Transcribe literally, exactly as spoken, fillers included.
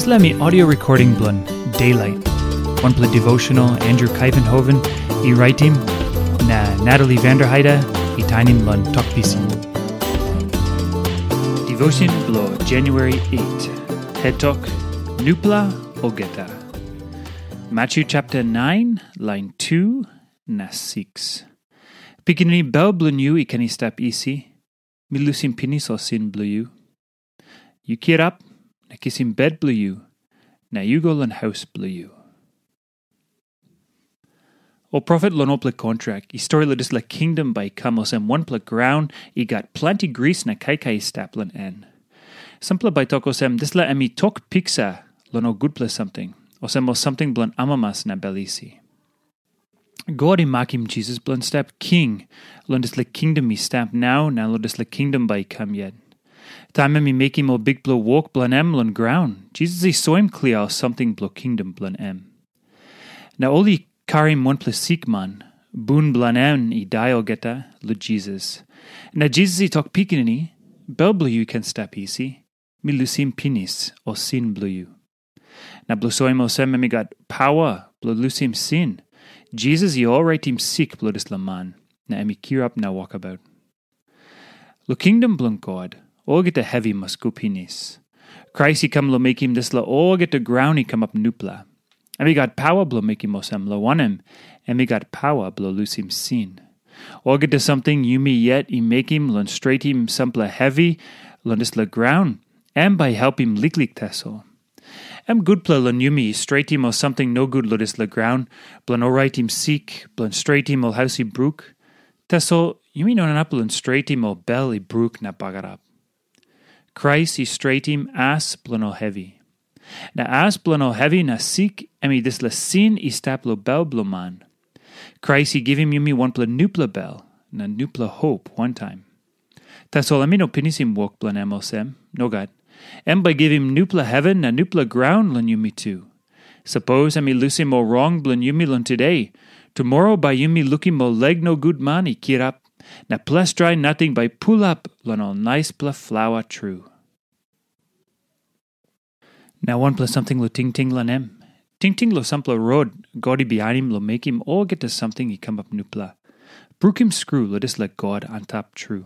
Dispela mi audio recording bilong Daylight, wanpela devotional Andrew Kuyvenhoven i raitim, na Natalie Vanderheide i tainim long Tok Pisin. Devotion bilong January eight. Het tok, Nupela olgeta. Matthew chapter nine, line two na six. Pikinini, bel bilong yu i ken i stap isi, mi lusim pinis ol sin bilong yu. Yu kirap, na kisim bet bilong yu, na yu go long haus bilong yu. Ol profet long olpela kontrak i stori long dispela kingdom bai i kam olsem wanpela graun i gat planti gris na kaikai i stap long en. Sampela bai tok olsem, dispela em i tok piksa long ol gutpela samting, olsem ol samting bilong amamas na bel isi. God i makim Jisas bilong stap king long dispela kingdom i stap nau na long dispela kingdom bai i kam yet. Taim em i mekim ol bikpela wok bilong em long graun, Jisas i soim klia ol samting bilong kingdom bilong em. Na ol i karim wanpela sikman, bun bilong en i dai olgeta, long Jisas. Na Jisas i tok, pikinini, bel bilong yu i ken stap isi, mi lusim pinis ol sin bilong yu. Na bilong soim olsem em i gat pawa bilong lusim sin, Jisas i olraitim sik bilong dispela man, na em i kirap na wokabaut. Long kingdom bilong God, olgeta hevi mas go pinis. Krais i kam long mekim dispela olgeta graun i kamap nupela. Em i gat pawa bilong mekim olsem, long wanem, em i gat pawa bilong lusim sin. Olgeta samting yumi yet i mekim long stretim sampela hevi long dispela graun, em bai helpim liklik tasol. Em gutpela long yumi stretim ol samting nogut long dispela graun, bilong oraitim sik, bilong stretim ol haus i bruk. Tasol yumi no inap long stretim ol bel i bruk na bagarap. Krais i stretim as bilong ol hevi. Na as bilong ol hevi na sik, em i dispela sin i stap long bel bilong man. Krais i givim yumi wanpela nupela bel, na nupela hop wantaim. Tasol em i no pinisim wok bilong em olsem, nogat. Em bai givim nupela heven na nupela graun long yumi tu. Sapos em i lusim ol rong bilong yumi long today, tumora bai yumi lukim ol leg nogut man i kirap, na ples drai nating bai pulap long ol naispela flawa tru. Na wanpela samting long tingting long em. Tingting long sampela rot God i bihainim long mekim olgeta samting i kamap nupela. Brukim skru long dispela God antap tru.